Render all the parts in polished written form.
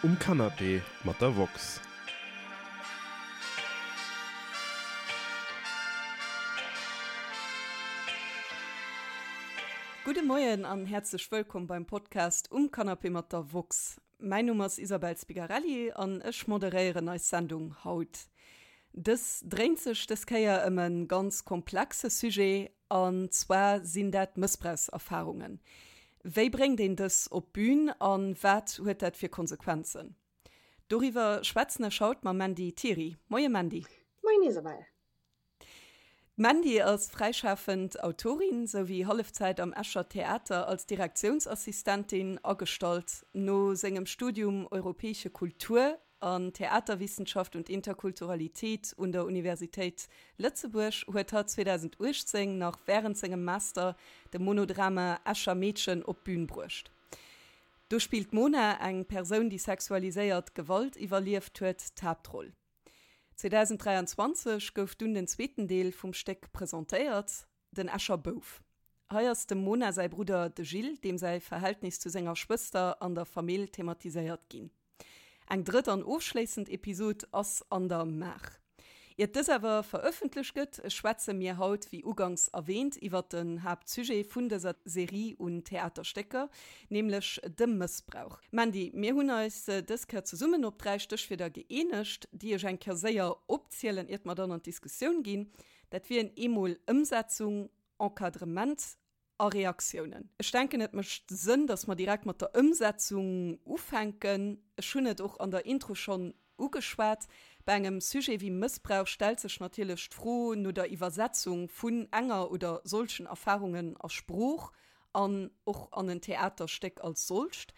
Um Canapé mat der woxx. Gudde Moien an häerzlech wëllkomm beim Podcast Um Canapé mat der woxx. Mäin Numm ass Isabel Spigarelli an ech moderéieren eis Sendung haut. Dës dréint sech dës Kéier ëm e ganz komplexe Sujet, an zwar sinn dat Mëssbrauchserfarungen. Wéi bréngt een dës op d'Bün a wat huet dat fir Konsequenzen? Doriwwer schwätzen ech haut mam Mandy Thiry. Moie Mandy. Moien Isabelle. D'Mandy ass fräischafend Autorin souwéi Hallefzäit am Escher Theater als Direktiounsassistentin agestallt. No sengem Studium Europäische Kultur an Theaterwissenschaft und Interkulturalität un der Universitéit Lëtzebuerg huet hatt 2018 nach wärend sengem Master de Monodrama Escher Meedchen op d'Bün bruecht. Do spillt d'Mona, eng Persoun déi sexualiséiert Gewalt iwwerlieft huet, d'Haaptroll. 2023 gouf dunn den zweeten Deel vum Stéck presentéiert, den Escher Bouf. Hei ass dem Mona säi Brudder de Gilles, deem säi Verhältnis zu senger Schwëster an der Famill thematiséiert ginn. Eng drëtt an ofschléissend Episod ass an der Maach. Iert dës awer verëffentlecht gëtt, schwätze mir haut, wéi uganks erwähnt, iwwert den Haaptsujet vun dëser Serie un Theaterstécker, nämlech de Mëssbrauch. Mandy, mir hunn eis dës Kéier zesummen op 3 Stéchwierder gëeenegt, déi ech eng Kéier séier opzielen, iert mer dann an d'Diskussioun ginn. Dat wieren eemol Ëmsetzung, Encadrement A Reaktiounen. Ech denken, et mécht Sënn, dass mer direkt mat der Ëmsetzung ufänken. Ech hunn et och an der Intro schonn ugeschwat. Bei engem Sujet wéi Mëssbrauch stellt sech natierlech d'Fro no der Iwwersetzung vun enger oder solchen Erfarungen a Sprooch an och an en Theaterstéck als solcht.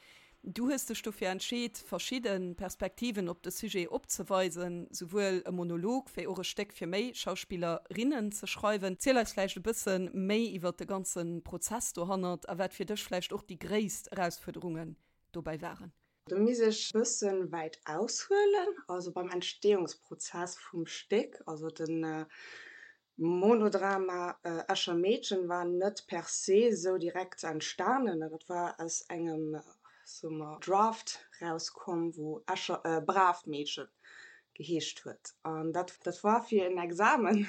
Du hues dech dofir entscheet, verschidde Perspektiven op de Sujet opzeweisen, souwuel e Monolog wéi och e Stéck fir méi Schauspillerinnen ze schreiwen. Ziel eis vläicht e bësse méi iwwer de ganze Prozess dohannert a wat fir dech vläicht och déi gréisst Erausfuerderungen dobäi waren. Do misst ech e bësse wäit aushuelen, also beim Entstehungsprozess vum Stéck, also de Monodrama Escher Meedchen war net per se sou direkt entstanen, dat war aus engem, soe mer, Draft rauskomm, wou Escher, Braavt Meedchen geheescht huet. An dat, dat war fir en Examen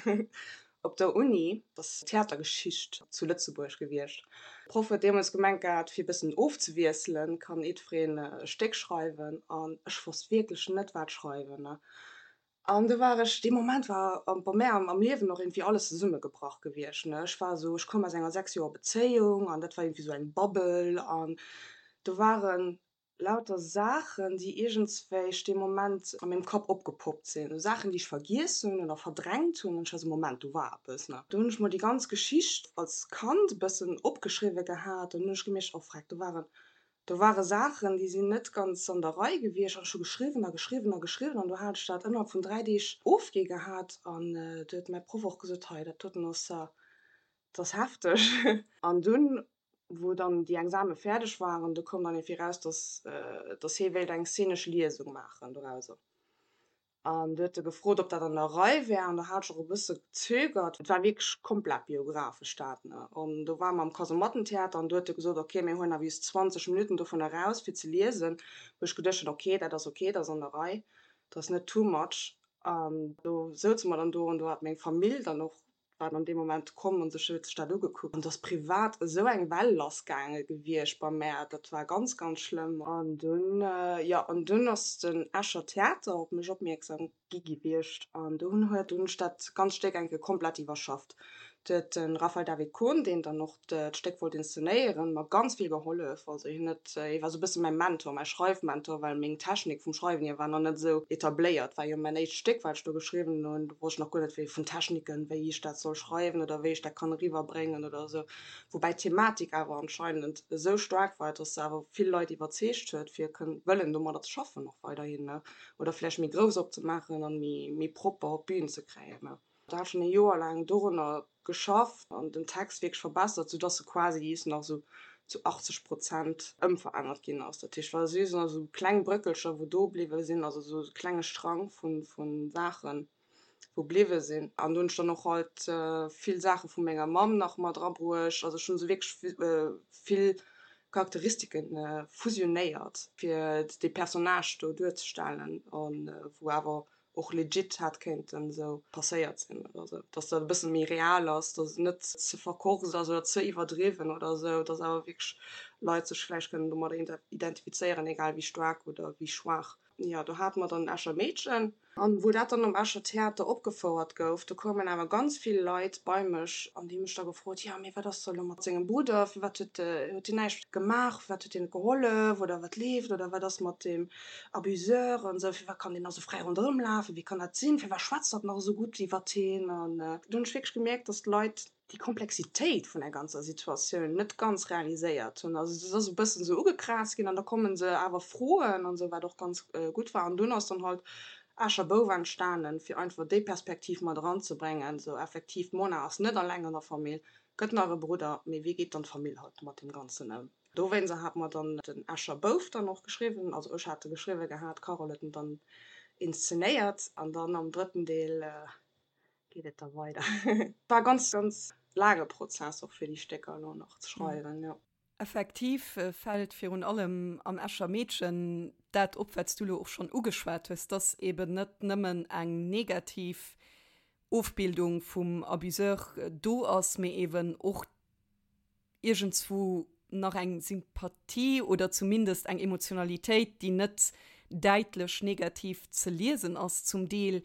op der Uni, dat ass Theatergeschicht zu Lëtzebuerg gewiescht. De Proff huet deemools gemengt gehat, fir e bëssen ofzewiesselen, kann jiddwereen e Stéck schreiwen. An ech wosst wierklech net, wat schreiwen. An do war ech, dee Moment war bei mär am Liewen och iergendwéi alles zesummegebrach gewiescht, ne. Ech war esou, ech koum aus enger 6 Joer Bezéiung an dat war iergendwéi esou eng Bubble an do ware lauter Saachen, déi iergendswéich dee Moment a mengem Kapp opgepoppt sinn, esou Saachen, déi ech vergiess hunn oder verdrängt hunn an ech war esou, Moment, do war eppes, ne. Do hunn ech mol déi ganz Geschicht als Kand e bëssen opgeschriwwe gehat an hunn ech gemierkt, oh freck, do waren Do ware Saachen, déi sinn net ganz an der Rei gewiescht an ech hu geschriwwen a geschriwwen a geschriwwen an do hat ech dat ënnerhalb vun 3 Deeg ofgi gehat an du huet mäi Proff och gesot, hei dat doten ass, dat ass hefteg. An dunn, wou dann déi Exame fäerdeg waren, du koum dann iergendwéi raus, dass, dass hie wéilt eng szenesch Liesung maachen dorauser. An du huet e gefrot, ob dat an der Rei wär, an do hat ech och e bësse gezögert. Et war wierklech komplett biographesch dat, ne. An do ware mer am Kasemattentheater an du huet e gesot, ok, mir huelen awer just 20 Minutten dovun eraus, fir ze liesen. Wou ech geduecht hunn, ok, dat ass ok, dat ass an der Rei, dat ass net too much. An do souze mer dann do an do hat meng Famill dann och war dann dee Moment komm an sech huet sech dat ugekuckt an et ass privat esou eng Well lassgaange gewiescht bei mär, dat war ganz ganz schlëmm. An dunn, jo, an dunn ass den Escher Theater op mech opmierksam gi gewiescht an do hunn huet hunn ech dat ganz Stéck eng Kéier komplett iwwerschafft. Do huet de Raphael David Kohn, deen dann och d'Stéck wollt inszenéieren, mer ganz vill gehollef. Also hien huet, hie war esou e bësse mäi Mentor, mäi Schreifmentor, well meng Technik vum Schreiwen hier war nach net esou etabléiert. War jo mäin éischt Stéck, wat ech do geschriwwen hunn. Do wosst ech nach guer net wéi vun Techniken, wéi ech dat soll schreiwen oder wéi ech dat kann eriwwerbréngen oder esou. Woubäi d'Thematik awer anscheinend esou staark war, dass se awer vill Leit iwwerzeegt huet, fir kënnen, wëllen domadder ze schaffen och weiderhin, ne, oder vläicht méi grouss opzemaachen an méi, méi propper op d'Bün ze kréien, ne. Da hat schonn e Joer laang dorunner geschafft an den Text wierklech verbessert, soudass e quasi just nach esou zu 80 Prozent ëmverännert ginn ass. Dat heescht, war just nach esou kleng Bréckelcher, wou do bliwwe sinn, also esou e klenge Strang vu Saachen, wou bliwwe sinn. An do hunn ech dann och halt vill Saache vu menger Mamm nach mat erabruecht. Also ech hunn esou wierklech vill. Charakteristike fusionéiert, fir dee Personnage do duerzestellen, a wou awer och legit hätt kéinten esou passéiert sinn oder esou, dass dat e bësse méi real ass, dass et net ze verkorkst ass oder ze iwwerdriwwen oder esou, dass awer wierklech Leit sech vläicht kënnen domadder identifizéieren, egal wéi staark oder wéi schwaach. Jo, do hate mer dann Escher Meedchen. An wou dat dann am Escher Theater opgefouert gouf, do koumen awer ganz vill Leit bei mech an déi hu mech da gefrot, jo, mee wat ass da elo mat sengem Brudder, firwat huet huet deen näischt gemaach, firwat huet deen net gehollef oder wat leeft oder wat ass mat deem Abuseur an esou, firwat kann deen nach esou fräi ronderëm lafen, wéi kann dat sinn, firwat schwätzt hatt nach esou gutt iwwert heen? An do hunn ech wierklech gemierkt, dass d'Leit déi Komplexitéit vun der ganzer Situatioun net ganz realiséiert hunn. Also et ass e bëssen esou ugekraazt ginn an da komme se awer froen an esou, wat och ganz gutt war. An dunn ass dann halt Escher Bouf entstanen, fir einfach déi Perspektiv mat eranzebréngen, esou effektiv, d'Mona ass net alleng an der Famill, gëtt nach e Brudder, mee wéi geet dann d'Famill halt mat deem Ganzen ëm? Dowéinster hat mer dann den Escher Bouf dann och geschriwwen, also ech hat e geschriwwe gehat, d'Carole huet en dann inszenéiert an dann am drëtten Deel geet et da weider. War ganz ganz laange Prozess och fir déi Stécker elo nach ze schreiwen, jo. Effektiv fält virun allem am Escher Meedchen dat op, wat s du elo och schonn ugeschwat hues, dass eben net nëmmen eng negativ Ofbildung vum Abuseur do ass, mee eben och iergendswou nach eng Sympathie oder zumindest eng Emotionalitéit, déi net däitlech negativ ze liesen ass zum Deel.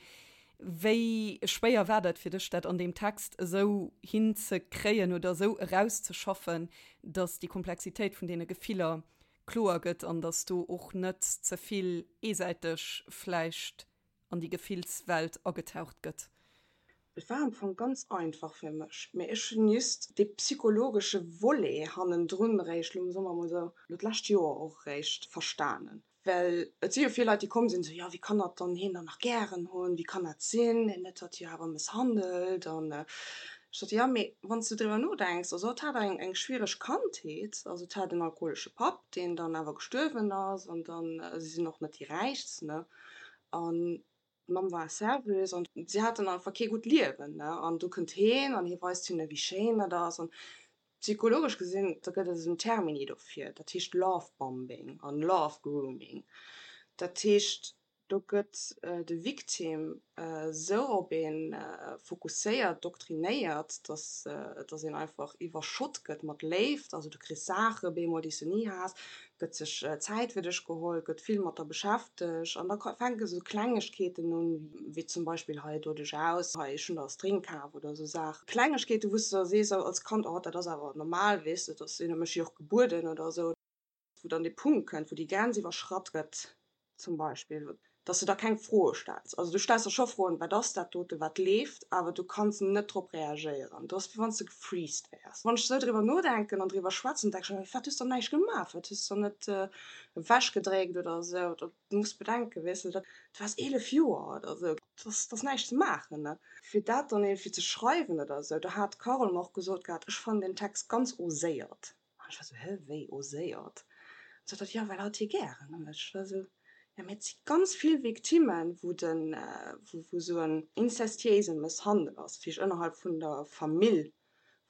Wéi schwéier war dat fir dech, dat an deem Text esou hinzekréien oder esou erauszeschaffen, datt déi Komplexitéit vun deene Gefiller kloer gëtt an datt do och net ze vill eesäiteg vläicht an déi Gefillswelt agetaucht gëtt. Et war am Fong ganz einfach fir mech, mee ech hunn just dee psychologesche Volet hannendrun eréischt elo, soe mer emol esou, elo d'lescht Joer och eréischt verstanen. Well et si jo vill Leit, déi komm sinn, esou, jo, wéi kann hatt dann hien dann nach gären hunn, wéi kann dat sinn, hien huet hatt jo awer mësshandelt. An ech sot, jo, mee wann s de driwwer nodenks, also hatt hat eng, eng schwiereg Kandheet, also et hat en alkoholesche Papp, deen dann awer gestuerwen ass, an dann, si sinn och net déi Räichst, ne, An d'Mamm war Serveuse an si haten einfach kee gutt Liewen, ne. An du kënnt heen an hie weist hinne wéi schéin dat ass. An psychologesch gesinn, da gëtt et esou en Termini dofir, dat heescht Love Bombing an Love Grooming. Dat heescht, do gëtt de Victime esou op ee fokusséiert, doktrinéiert, dass dass een einfach iwwerschott gëtt mat Léift. Also du kriss Saache bemol, déi s du ni has, gëtt sech Zäit fir dech geholl, gëtt vill mat der beschäftegt an da fänke sou Klengegkeeten un, wéi zum Beispill hei do dech aus, hei ech hunn der e String kaf oder sou Saachen. Klengegkeeten, wou s de da sees als Kand, oh dat ass awer normal, weess de, dat sinn mech jo och gebueden oder sou. Wou dann dee Punkt kënnt, wou déi Grenz iwwerschratt gëtt zum Beispill, dass de da keng Froe stells. Also du stells der scho Froen, wat ass dat dote, wat leeft, awer du kanns net drop reagéieren. Du ass wéi wann s de gefreezed wäers. Wann ech esou driwwer nodenken an driwwer schwätzen, denke ech ëmmer, firwat hues de dann näischt gemaach, firwat hues de dann net ewechgedréckt oder esou. Du muss bedenken, weess de, dat du waars 11 Joer oder esou, dat ass näischt ze maachen, ne. Fir dat dann iergendwéi ze schreiwen oder esou, do hat d'Carole mer och gesot gehat, ech fannen den Text ganz oséiert. An ech war sou, Hä, wéi oséiert? An sot hatt, Jo, well hatt hie gären huet. Ech war sou, Jo, mee et si ganz vill Victimmen, wou den, wou sou en inzestiéise Mësshandel ass, vläicht ënnerhalb vun der Famill,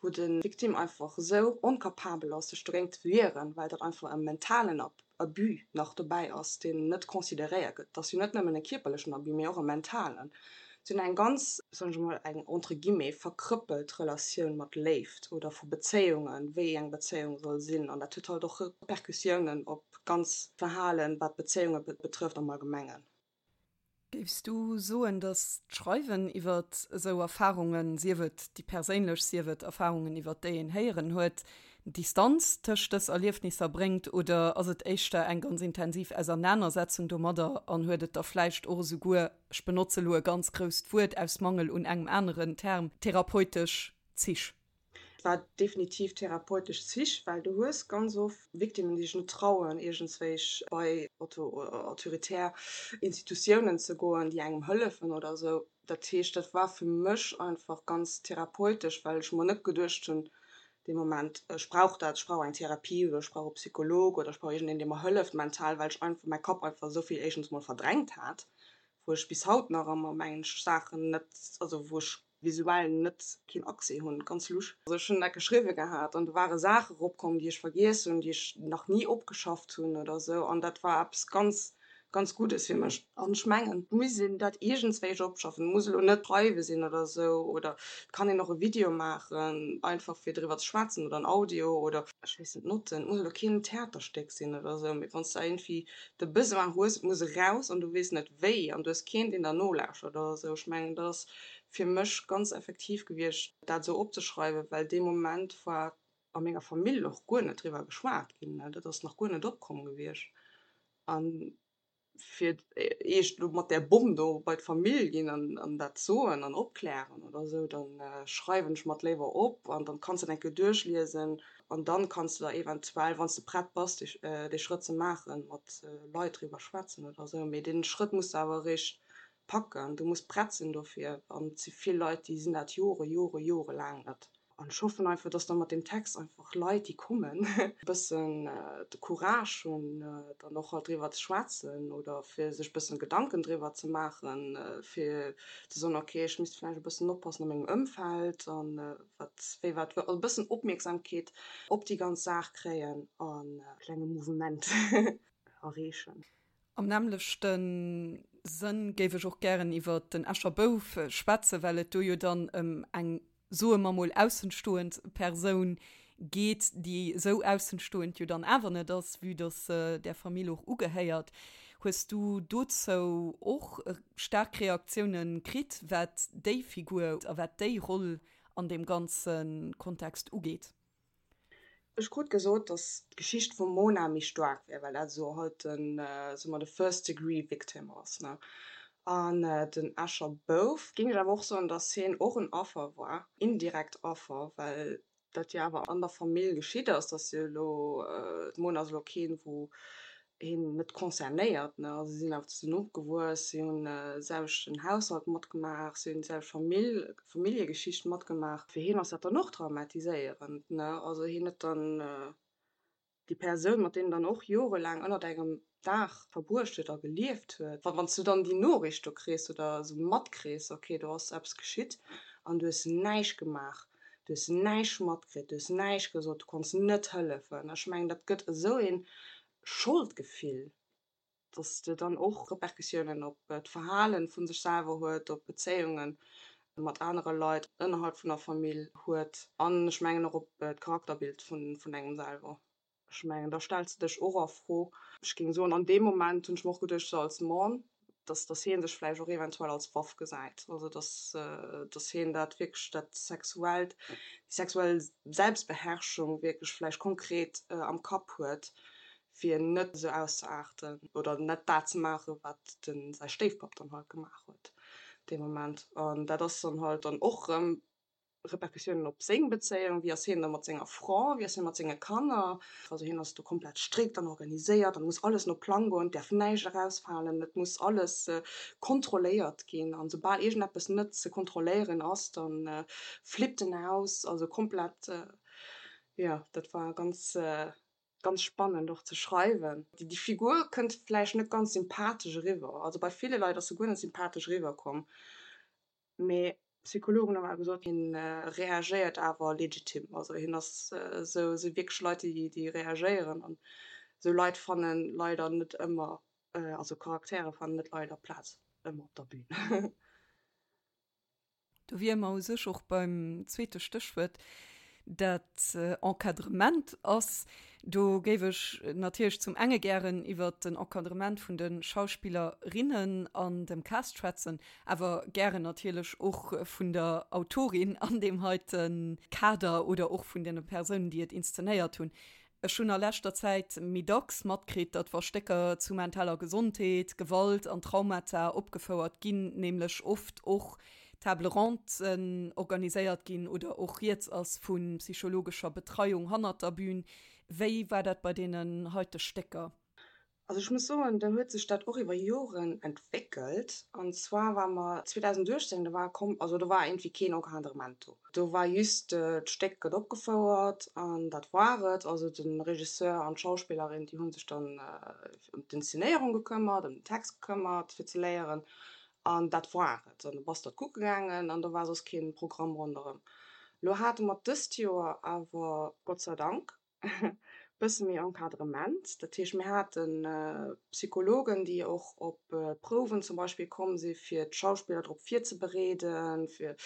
wou de Victime einfach esou onkapabel ass, sech dogéint ze wieren, well dat einfach e mentalen Abus nach dobäi ass, deen net consideréiert gëtt. Et ass jo net nëmmen e kierperlechen Abus, mee och e mentalen. Si hunn eng ganz, soen ech emol, eng entre guillemets verkrëppelt Relatioun mat Léift oder vu Bezéiungen, wéi eng Bezéiung soll sinn. An dat huet halt och Repercussiounen op d'ganz Verhalen, wat Bezéiunge betrëfft am Allgemengen. Géifs du soen, datt d'Schreiwen iwwer esou Erfarungen, sief et déi perséinlech, sief et Erfarungen, iwwer déi een héieren huet, Distanz tëscht dës Erliefnisser bréngt, oder ass et éischter eng ganz intensiv Ausernanersetzung domadder an huet et da vläicht och esouguer, ech benotze lo e ganz grousst Wuert aus Mangel un engem aneren Term, therapeutesch Zich? Et war definitiv therapeutesch Zich, well du hues ganz oft Victimmen, déi sech net trauen, iergendswéich bei autoritär Institutiounen ze goen, déi engem hëllefen oder esou. Dat heescht, dat war fir mech einfach ganz therapeutesch, well ech mer net geduecht hunn dee Moment, ech brauch dat, ech brauch eng Therapie oder ech brauch e Psycholog oder ech brauch iergendeen, dee mer hëlleft mental, well ech einfach mäi Kapp einfach esou vill éischtens mol verdrängt hat, wou ech bis haut nach ëmmer, mengen ech, Saachen net, also wou ech. Visuell net keen Accès hunn, ganz lusch. Also ech hunn dat geschriwwe gehat an do ware Saache eropkomm, déi ech vergiess hunn, déi ech nach ni opgeschafft hunn oder esou an dat war eppes ganz, ganz Guddes fir mech. An ech mengen, et muss een dat iergendswéi opschaffen, et muss elo net schreiwe sinn oder esou oder et kann een och e Video maachen, einfach fir driwwer ze schwätzen oder en Audio oder ech weess net, Notten, et muss elo keen Theaterstéck sinn oder esou, mee wann s de iergendwéi de Besoin hues, et muss eraus an du weess net wéi an du hues keen, deen der nolauschtert oder esou, ech mengen, dat ass fir mech ganz effektiv gewiescht, dat esou opzeschreiwen, well dee Moment war a menger Famill och guer net driwwer geschwat ginn, dat ass nach guer net opkomm gewiescht. A fir d'éischt elo mat där Bomm do bei d'Famill ginn an dat soen an opklären oder esou, da schreiwen ech mer et léiwer op an dann kanns de et eng Kéier duerchliesen an dann kanns de der eventuell, wann s de prett bass, dee Schrëtt ze maachen, mat Leit driwwer schwätzen oder esou. Mee dee Schrëtt muss de awer eréischt packen, du muss prett sinn dofir an et si vill Leit, déi sinn dat Jore, Jore, Jore laang net. An ech hoffen einfach, dass da mat deem Text einfach Leit, déi kommen, e bëssen de Courage hunn, dann och halt driwwer ze schwätzen oder fir sech e bëssen Gedanken driwwer ze maachen, fir ze soen, okay, ech misst vläicht e bëssen oppassen a mengem Ëmfeld an wat, wéi wat, also e bëssen Opmierksamkeet op déi ganz Saach kréien an e klenge Mouvement erreechen. Am nämmlechte Sënn géif ech och gären iwwer den Escher Bouf schwätzen, well et do jo dann ëm eng, soe mer mol, aussenstoend Persoun geet, déi esou aussenstoend jo dann awer net ass, vue dass se där Famill och ugehéiert. Hues du dozou och staark Reaktiounen kritt, wat déi Figur a wat déi Roll an deem ganze Kontext ugeet? Ech krut gesot, dass d'Geschicht vum Mona méi staark wär, well dat esou halt den, soe mer, de first degree victim ass, ne. An den Escher Bouf, géing ech awer och soen, dass hien och en Affer war, indirekt Affer, well dat jo awer an der Famill geschitt ass, dass jo elo, d'Mona ass elo keen, wou hien net concernéiert, ne, also si sinn awer zesummen opgewuess, si hunn de selwechten Haushalt matgemaach, si hunn déi selwecht Famill, Familljegeschicht matgemaach. Fir hien ass dat dann och traumatiséierend, ne, also hien huet dann déi Persoun, mat deem en dann och jorelaang ënnert engem Daach verbruecht huet a gelieft huet, wann s du dann déi Noriicht do kriss oder esou matkriss, okay, do ass eppes geschitt an du hues näischt gemaach, du hues näischt matkritt, du hues näischt gesot, du konns net hëllefen, ech mengen, dat gëtt esou een Scholdgefill, dass de dann och Repercussiounen op d'Verhalen vu sech selwer huet, op Bezéiunge mat anere Leit ënnerhalb vun der Famill huet an ech mengen och op d'Charakterbild vun engem selwer. Ech mengen, da stells de dech och a Fro. Ech géing soen, an deem Moment hunn ech mer och geduecht, sou als Mann, dass dass hie sech vläicht och eventuell als Waff gesäit, also dass dass hien dat wierklech dat sexuellt, déi sexuell Selbstbeherrschung wierklech vläicht konkret am Kapp huet, fir net esou auszeaarten oder net dat ze maachen, wat de säi Stéifpapp dann halt gemaach huet dee Moment. An dat ass dann halt dann och erëm Repercussiounen op seng Bezéiung, wéi ass hien da mat senger Fra, wéi ass hie mat senge Kanner. Also hien ass do komplett strikt an organiséiert an et muss alles no Plang goen, et däerf näischt erausfalen, et muss alles kontrolléiert ginn an soubal iergendeppes net ze kontrolléieren ass, da flippt en aus, also komplett, jo dat war ganz, ganz spannend och ze schreiwen. Déi Figur kënnt vläicht net ganz sympathesch eriwwer, also bei ville Leit ass se guer net sympathesch eriwwerkomm, Mee Psychologen hu awer gesot, hien reagéiert awer legitim. Also hien ass esou, esou wierklech Leit, déi, déi reagéieren. An esou Leit fanne leider net ëmmer, also Charaktere fannen net leider Plaz ëmmer op der Bühn. Do wiere mer u sech och beim zweete Stéchwuert, dat Encadrement ass. Do géif ech natierlech zum enge gären iwwert den Encadrement vun de Schauspillerinnen an dem Cast schwätzen, awer gären natierlech och vun der Autorin an deem heite Kader oder och vun deene Persounen, déi et inszenéiert hunn. Ech hunn a leschter Zäit méi dacks matkritt, datt wa Stécker zu mentaler Gesondheet, Gewalt an Traumata opgefouert ginn, nämlech oft och Table Rondesen organiséiert ginn oder och rieds ass vu psychologescher Betreiung hannert der Bühn. Wéi war dat bei deenen heite Stécker? Also ech muss soen, do huet sech dat och iwwer Joren entwéckelt. An zwar war mer 2018, do war komm, also do war iergendwéi keen Encadrement do. Do war just, d'Stéck gëtt opgefouert an dat war et. Also de Regisseur an d'Schauspillerin, déi hu sech dann ëm d'Inszenéierung gekëmmert, ëm den Text gekëmmert fir ze léieren. An dat war et. An du bass dat kucke gaangen an do war soss kee Programm ronderëm. Lo hate mer dëst Joer awer, Gott sei Dank, e bësse méi Encadrement. Dat heescht, mir hate Psychologen, déi och op d'Prouwen zum Beispill komm si fir d'Schauspiller drop virzebereeden, fir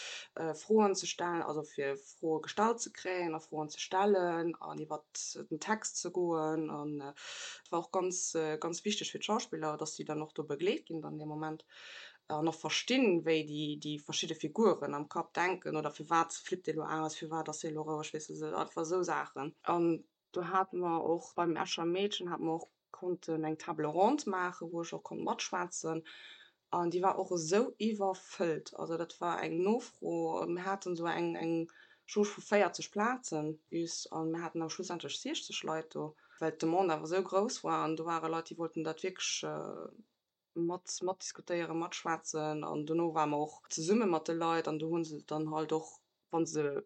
Froen ze stellen, also fir Froe gestallt ze kréien a Froen ze stellen an iwwert den Text ze goen. An et war och ganz, ganz wichteg fir d'Schauspiller, dass déi dann och do begleet ginn dann dee Moment an och verstinn, wéi déi, déi verschidde Figuren am Kapp denken oder firwat flippt dee lo aus, firwat ass dee lo roueg, weess de, einfach esou Saachen. An do hate mer och beim Escher Meedchen hate mer och konnten eng Table ronde maachen, wou ech och konnt matschwätzen an déi war och esou iwwerfëllt. Also dat war eng Nofro, mir haten esou eng eng Jauge vu 40 Plazen just an mir haten awer schlussendlech 60 Leit do, well d'Demande awer esou grouss war an do ware Leit, déi wollten dat wierklech mat matdiskutéieren, matschwätzen an dono ware mer och zesumme mat de Leit an do hu se dann halt och, wa se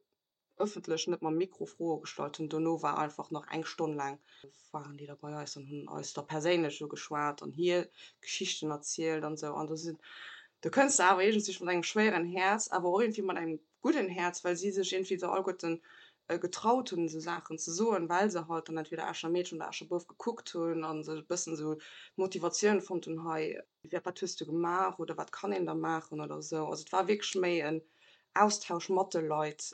ëffentlech net mam Mikro Froe gestallt hunn. Dono war einfach nach eng Stonn laang waren déi da bei eis an hunn eis da perséinlech ugeschwat an hir Geschichten erzielt an esou. An do sinn, do kënns de awer iergendwéi mat engem schwéieren Häerz, awer och iergendwéi mat engem gudden Häerz, well si sech iergendwéi esou alleguerten getraut hunn, esou Saachen ze soen, well se halt dann entweder Escher Meedchen oder Escher Bouf gekuckt hunn a sech e bëssen esou d'Motivatioun fonnt hunn, hei, wat hues du gemaach oder wat kann een da maachen oder esou. Also et war wierklech méi en Austausch mat de Leit,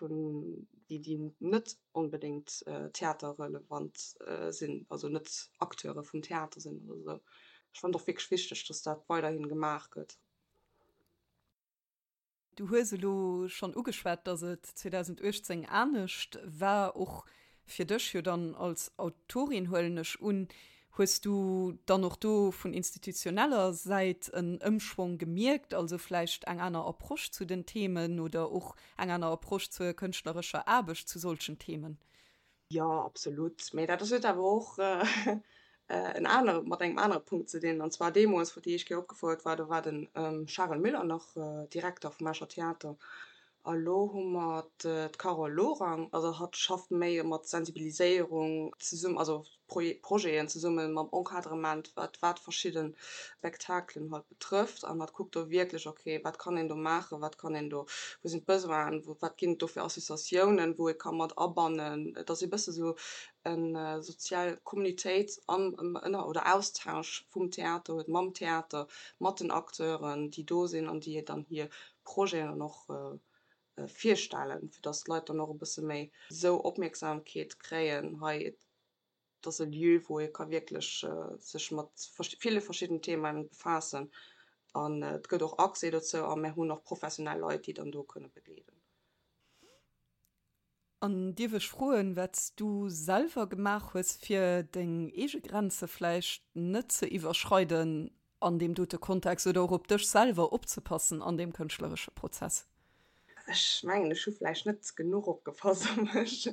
déi déi net onbedéngt theaterrelevant sinn, also net Acteure vum Theater sinn oder esou. Ech fannen et och wierklech wichteg, datt dat weiderhi gemaach gëtt. Du hues elo schonn ugeschwat, datt et 2018 anescht war, och fir dech jo dann als Autorin, huelen ech un. Hues du dann och do vun institutioneller Säit en Ëmschwong gemierkt, also vläicht eng aner Approche zu den Themen oder och eng aner Approche zur kënschtlerescher Aarbecht zu solchen Themen? Jo, absolut. Mee dat huet awer och en anere, mat engem anere Punkt ze dinn. An zwar deemools, wou déi éischt Kéier opgefouert war, do war de Charel Müller nach Direkter vum Escher Theater. A lo hu mer d'Carole Lorang. Also hatt schafft méi mat Sensibiliséierung zesummen, also Projeten zesumme mam Encadrement, wat wat verschidde Spektakelen halt betrëfft. An hatt kuckt do wierklech, okay, wat kann een do maachen, wat kann een do, wou sinn d'Besoinen, wou, wat ginn et do fir Associatiounen, wou ee ka mat abannen. Et ass e bësse sou eng sozial Communitéit an ënner oder Austausch vum Theater huet mam Theater, mat den Acteuren, déi do sinn an déi dann hir Projeten dann och virstellen, fir dass d'Leit dann och e bësse méi esou Opmierksamkeet kréien, hei et ass e Lieu, wou ee ka wierklech sech mat ville verschiddenen Themaen befaassen an et gëtt och Accès dozou a mir hunn och professionell Leit, déi dann do kënne begleeden. An dierf ech froen, wat s du selwer gemaach hues, fir deng eege Grenze vläicht net ze iwwerschreiden an deem dote Kontext oder och op dech selwer opzepassen an deem kënschtleresche Prozess? Ech mengen, ech hu vläicht net genuch opgepasst op mech,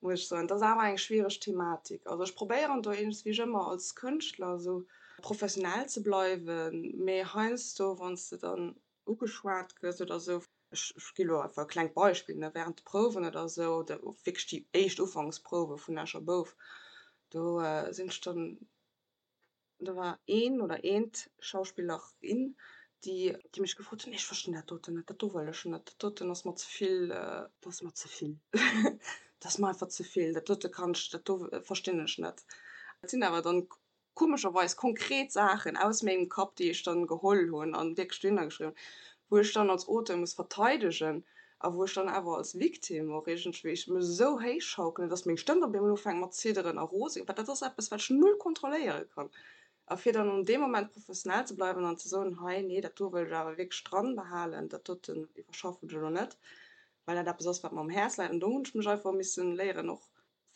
muss ech soen. Et ass awer eng schwiereg Thematik. Also ech probéieren do iergendswéi ëmmer als Kënschtler esou professionell ze bleiwen, mee heiansdo, wann s de dann ugeschwat gëss oder esou, ech gi lo einfach e klengt Beispill, ne, während de Prouwen oder esou, oder wierklech déi éischt Ufanksprouwe vun Escher Bouf, do sinn ech dann Do war een oder eent Schauspillerin, déi déi mech gefrot hunn, nee ech verstinn dat doten net, dat do wëll ech net, dat doten ass mer ze vill, dat ass mer ze vill, dat ass mer einfach ze vill, dat dote kann ech, dat do verstinn ech net. Dat sinn awer dann komescherweis konkret Saachen aus mengem Kapp, déi ech dann geholl hunn an wierklech dohinner geschriwwen hunn, wou ech dann als Auteur muss verteidegen a wou ech dann awer als Victime och iergendwéi ech mech esou héich schaukelen, dass meng Stëmm op eemol ufänkt mat zidderen a rose ginn, well dat ass eppes, wat ech null kontrolléiere kann. A fir dann an deem Moment professionell ze bleiwen an ze soen, hei, nee, dat do wëll ech awer wierklech dran behalen, dat doten iwwerschaffen ech elo net, well dat eppes ass, wat mer um Häerz läit. An do hunn ech mech einfach missen léieren och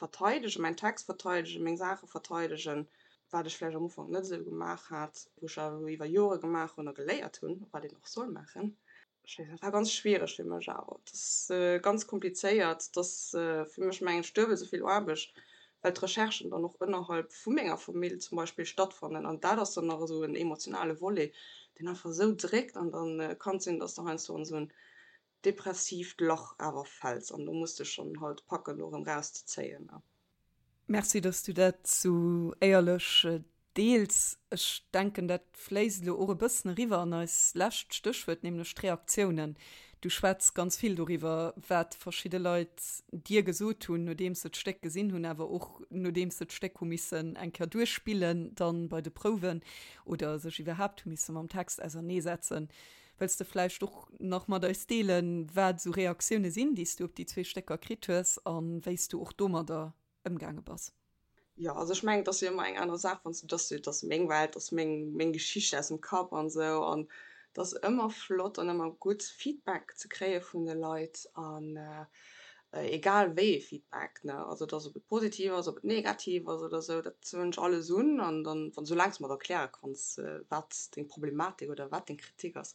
verteidegen, mäin Text verteidegen, meng Saache verteidegen, wat ech vläicht am Ufank net esou gemaach hat, wou ech awer elo iwwer Jore gemaach hunn a geléiert hunn, wat een och soll maachen. Ech weess net, et war ganz schwiereg fir mech awer. Et ass ganz komplizéiert. Et ass fir mech, mengen ech, duebel esou vill Aarbecht, well d'Recherchen dann och ënnerhalb vu menger Famill zum Beispill stattfannen. An dat ass dann nach esou en emotionale Volet, deen einfach esou dréckt. An da kann et sinn, dass de heiansdo an esou en depressiivt Lach awer fäls. An do muss de schonn halt packen, do erëm rauszezéien. Merci, dass du dat sou éierlech. Deels. Ech denken, dat fléisst elo och e bëssen eriwwer an eis lescht Stéchwuert, nämlech d'Reaktiounen. Du schwätz ganz vill doriwwer, wat verschidde Leit dir gesot hunn, nodeems se d'Stéck gesinn hunn, awer och nodeems se d'Stéck hu missen eng Kéier duerchspillen dann bei de Prouwen oder sech iwwerhaapt hu misse mam Text auserneesetzen. Wëlls de vläicht och nach mat eis deelen, wat esou Reaktioune sinn, déi s du op déi zwee Stécker kritt hues a wéi s du och domadder ëmgaange bass? Jo, also ech mengen, et ass jo ëmmer eng aner Saach, wann s du, dass du, et ass meng Welt, et ass meng, meng Geschicht aus dem Kapp an esou an et ass ëmmer flott an ëmmer gutt Feedback ze kréie vun de Leit an egal wéi ee Feedback, ne, also et ass, ob et positiv ass, ob et negativ ass oder esou, dat huelen ech alles un an dann, wann, soulaang s de mer et erkläre kanns, wat deng Problematik oder wat deng Kritik ass,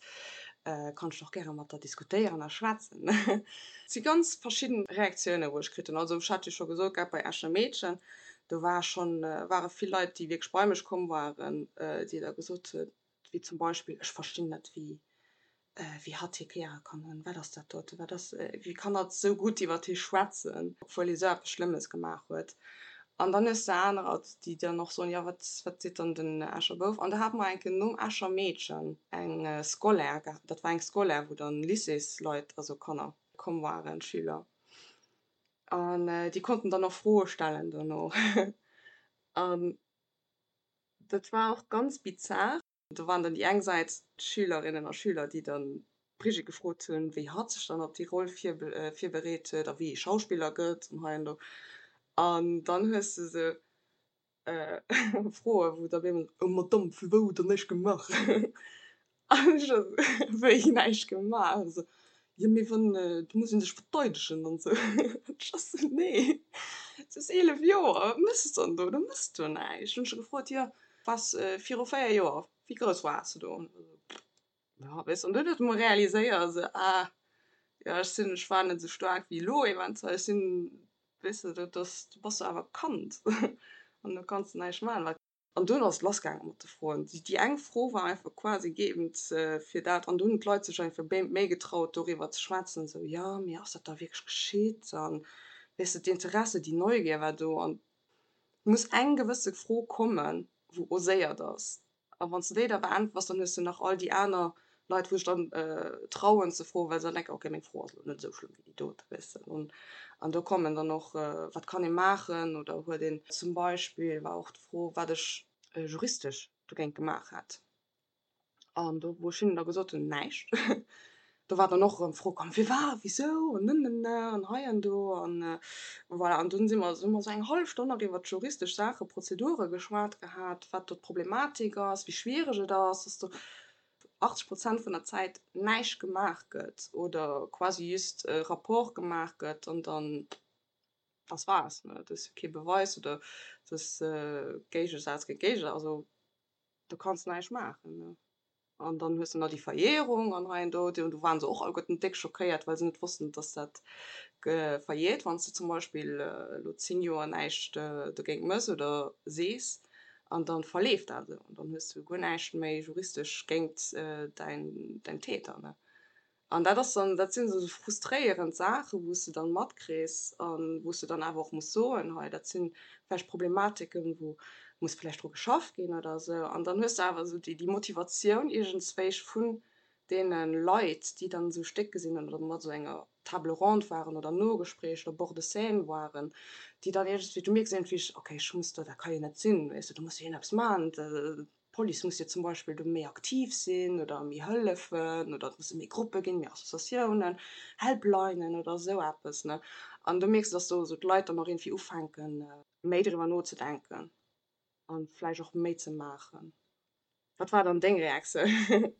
kann ech och gäre mat der diskutéieren a schwätzen. Et si ganz verschidden Reaktiounen, wou ech kritt hunn. Also ech hat jo scho gesot gehat, bei Escher Meedchen, do war schonn, ware vill Leit, déi wierklech bei mech komm waren, déi da gesot hunn, wéi zum Beispill, ech verstinn net, wéi, wéi hatt hir gäre kann hunn, wat ass dat dote, wat ass, wéi kann hatt esou gutt iwwert hie schwätzen, obwuel hie sou eppes Schlëmmes gemaach huet. An dann hues de anerer, déi dann och soen, jo wat, wat seet dann den Escher Bouf? An da hate mer eng Kéier nom Escher Meedchen eng Scolaire gehat, dat war eng Scolaire, wou dann Lycéesleit, also Kanner komm waren, Schüler, an déi konnten dann och Froe stellen dono. An dat war och ganz bizar. Do waren dann déi eng Säit d'Schülerinnen a Schüler, déi dann d'Brigitte gefrot hunn, wéi hatt sech dann op déi Roll virbereet huet a wéi ee Schauspiller gëtt an hei an do. An dann hues de esou Froen, wou da op eemol, Oh Madamm, vu wou hutt Der näischt gemaach? An ech esou, Wéi näischt gemaach? Esou, Jo, mee wann, do muss ee sech verteidegen an esou. Ech esou, Nee, du hues 11 Joer, wat méchs de dann do? Du méchs do näischt. Hunn ech gefrot, Jo, Waars viru 4 Joer, wéi grouss waars de do? Ja, weess, an dunn huet e mol realiséiert, esou, ah, jo, ech sinn, ech war net esou staark wéi elo eventuell, ech sinn, weess de, dat ass, du bass jo awer Kand an du kanns näischt maachen. An dunn ass et lassgaange mat de Froen. Déi eng Fro war einfach quasi gëeegent fir dat an dunn hunn d'Leit sech einfach méi getraut, doriwwer ze schwätzen, esou, jo, mee ass dat da wierklech geschitt? An, weess de, d'Interesse, déi Neugier war do an muss eng gewësse Fro kommen, wou oséiert ass. A wann s de déi da beäntwers, dann hues de nach all déi aner Leit, wou sech dann trauen ze froen, well se dann denken, okay, meng Fro ass elo net esou schlëmm wéi déi dote, weess de. An an do kommen dann och, wat kann ee maachen oder huet een zum Beispill war och d'Fro, wat ech juristesch dogéint gemaach hätt. An do, wou ech hinnen da gesot hunn, näischt, do war dann och erëm d'Fro komm, firwat, wisou an nënnenna an hei an do an voilà. An dunn si mer, hu mer esou eng hallef Stonn nach iwwert juristesch Saachen, Prozedure geschwat gehat, wat do d'Problematik ass, wéi schwiereg et ass, dass do 80 Prozent vun der Zäit näischt gemaach gëtt oder quasi just e Rapport gemaach gëtt an dann das war's, ne. Et ass jo kee Beweis oder et ass Géigesaz géint Géigesaz, also. Do kanns de näischt maachen, ne? An dann hues de nach déi Verjährung an hei an do. Do waren se och alleguerten déck schockéiert, well se net wossten, dass dat verjährt, wann s de zum Beispill elo 10 Joer näischt dogéint mëss oder sees an dann verleeft dat esou. An dann hues du guer näischt méi juristesch géint däin, däin Täter, ne? An dat ass dann, dat sinn esou frustréierend Saachen, wou s de dann matkriss a wou s de dann awer och muss soen, hei dat si vläicht Problematiken, wou muss vläicht dru geschafft ginn oder esou. An dann hues de awer esou déi Motivatioun iergendzwéich vun deene Leit, déi dann esou Stéck gesinn hunn oder mat esou enger Table ronde waren oder Nogespréich oder Bord de scène waren, déi dann iergendswéi, du mierks iergendwéi, okay, ech muss do, dat ka jo net sinn, weess de, do muss jo een eppes maachen, D'Police muss jo zum Beispill do méi aktiv sinn oder méi hëllefen oder et musse méi Gruppe ginn, méi Associatiounen, Helplinen oder esou eppes, ne. An do mierks de, dass do esou d'Leit dann och iergendwéi ufänken, méi driwwer nozedenken a vläicht och méi ze maachen. Wat war dann deng Reaktioun?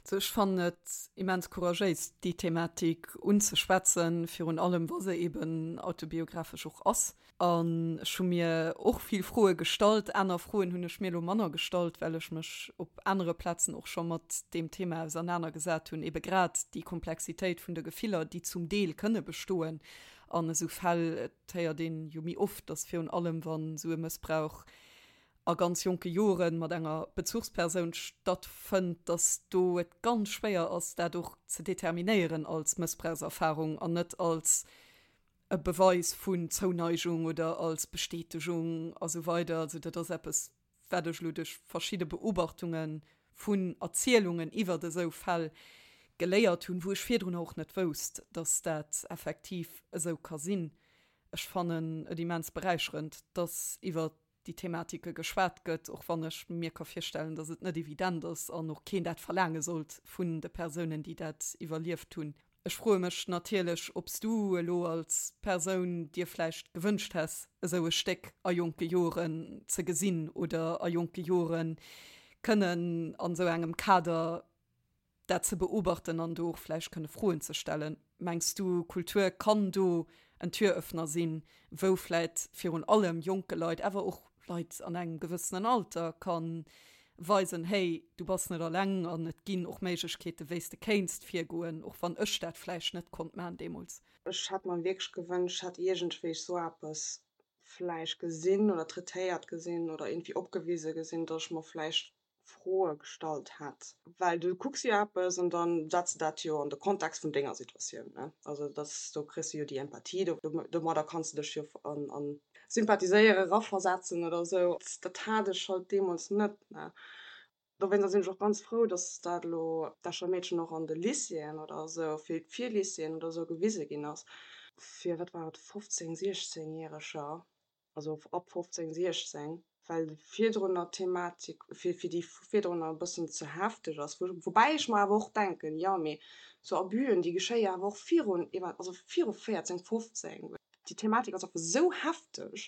Also ech fannen et immens couragéis, déi Thematik unzeschwätzen, virun allem wa se eben autobiographesch och ass. An ech hu mir och vill Froe gestallt. Aner Froen hunn ech mir elo manner gestallt, well ech mech op anere Plazen och scho mat deem Thema ausernanergesat hunn, ebe grad déi Komplexitéit vun de Gefiller, déi zum Deel kënne bestoen an esou Fäll. Et héiert een jo méi oft, datt virun allem wann esou e Mëssbrauch a ganz jonke Jore mat enger Bezuchspersoun stattfënnt, dass do et ganz schwéier ass, dat och ze determinéieren als Mëssbrauchserfarung an net als e Beweis vun Zouneigung oder als Bestätegung a sou weider. Also dat ass eppes, wat ech elo duerch verschidde Beobachtunge vun Erzielungen iwwert esou Fäll geléiert hunn, wou ech virdrunner och net wousst, dass dat effektiv esou ka sinn. Ech fannen et immens beräicherend, dass iwwert déi Thematike geschwat gëtt, och wann ech mir ka virstellen, dass et net evident ass an och keen dat verlaange sollt vun de Persounen, déi dat iwwerlieft hunn. Ech froe mech natierlech, ob s du elo als Persoun dir vläicht gewënscht häss, esou e Stéck a jonke Joren ze gesinn oder a jonke Jore kënnen an esou engem Kader dat ze beobachten an do och vläicht kënne Froen ze stellen. Mengs du, Kultur kann do en Türöffner sinn, wou vläicht virun allem jonke Leit, awer och Leit an engem gewëssenen Alter ka weisen, hey, du bass net alleng an et ginn och Méiglechkeeten, wéi s de kéinst virgoen, och wann ech dat vläicht net konnt maachen deemools. Ech hätt mer wierklech gewënscht, ech hätt iergendwéi sou eppes vläicht gesinn oder traitéiert gesinn oder iergendwéi opgewise gesinn, datt ech mer vläicht Froe gestallt hätt. Well du kucks jo eppes an dann setz de dat jo an de Kontext vun denger Situatioun, ne? Also dass, do kriss de jo déi Empathie, do, domadder kanns de dech jo an, an sympathiséiere, eraversetzen oder esou. Dat hat ech halt deemools net, ne? Dowéinster sinn ech och ganz frou, dass dat elo d'Escher Meedchen och an de Lycéeën oder esou, fir d'Virlycéeën oder esou gewise ginn ass. Fir, wat war et, 15-, 16 Järeger also ab 15, 16, well virdrunner d'Thematik fir fir déi virdrunner e bëssen ze hefteg ass. Woubäi ech mer awer och denken, jo mee sou Abusen, déi geschéie awer och virun, also viru 14, 15. Déi Thematik ass einfach sou hefteg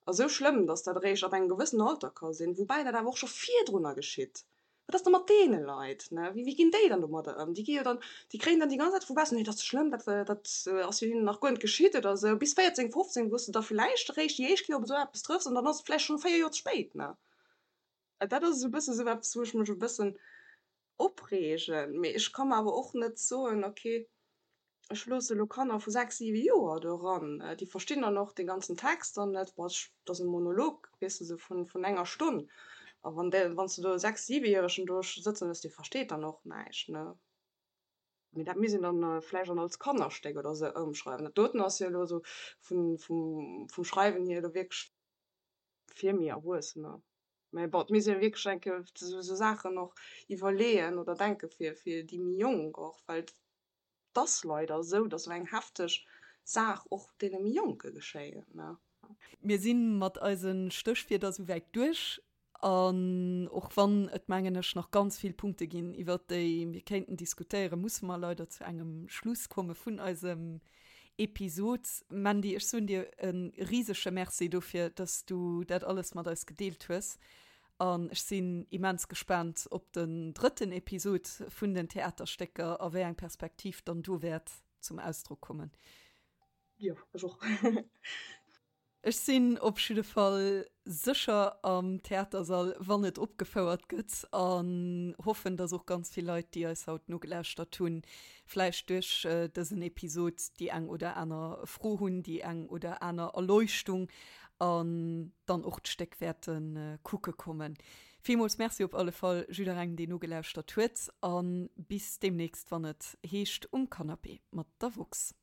a sou schlëmm, datt dat eréischt ab engem gewëssenen Alter ka sinn, woubäi dat awer och scho virdrunner geschitt. Wat ass da mat deene Leit, ne? Wéi, wéi ginn déi dann domadder ëm? Déi gi jo dann, déi kréien dann déi ganz Zäit vu baussen, nee, dat ass schlëmm, dat, dat ass jo hinnen nach guer net geschitt oder esou. Bis 14, 15, wou s de da villäicht eréischt déi éischt Kéier op esou eppes trëffs an dann ass et vläicht schonn 4 Joer ze spéit, ne? Dat ass esou e bësse sou eppes, wou ech mech e bëssen opreegen. Mee ech ka mer awer och net soen, okay, Ech loosse elo Kanner vu 6, 7 Joer do eran, déi verstinn dann och dee ganzen Text dann net. Bon, et ass e Monolog, weess de, sou vun enger Stonn. A wann dee, wann s de do e 6-, 7-Järegen do sëtzen hues, dee versteet dann och näischt, ne? Mee dat misst een dann vläicht dann als Kannerstéck oder sou ëmschreiwen. Dat doten ass jo elo sou vun, vum, vum Schreiwen hier elo wierklech fir méi Erwuessener. Mä bon, et misst ee wierklech eng Kéier sou Saachen och iwwerleeën oder denke fir, fir déi méi Jonk och, well 't ass leider esou, dass esou eng hefteg Saach och deene méi Jonke geschéien, ne? Mir si mat eise Stéchwierder souwäit duerch. An och wann et, mengen ech, nach ganz vill Punkte ginn, iwwert déi mir kéinten diskutéieren, musse mer leider zu engem Schluss komme vun eisem Episod. Mandy, ech soen dir e risege Merci dofir, dass du dat alles mat eis gedeelt hues. An ech sinn immens gespaant op den drëtten Episod vun den Theaterstécker a wéi eng Perspektiv dann do wäert zum Ausdrock kommen. Jo, ech och. Ech sinn op jidde Fall sécher am Theatersall, wann et opgefouert gëtt, an hoffen, dass och ganz vill Leit, déi eis haut nogelauschtert hunn, vläicht duerch dësen Episod déi eng oder aner Fro hunn, déi eng oder aner Erleuchtung an dann och d'Stéck wäerte kucke kommen. Villmools Merci op alle Fall jidderengem, deen nogelauschtert huet, a bis deemnächst, wann et heescht Um Canapé mat der woxx.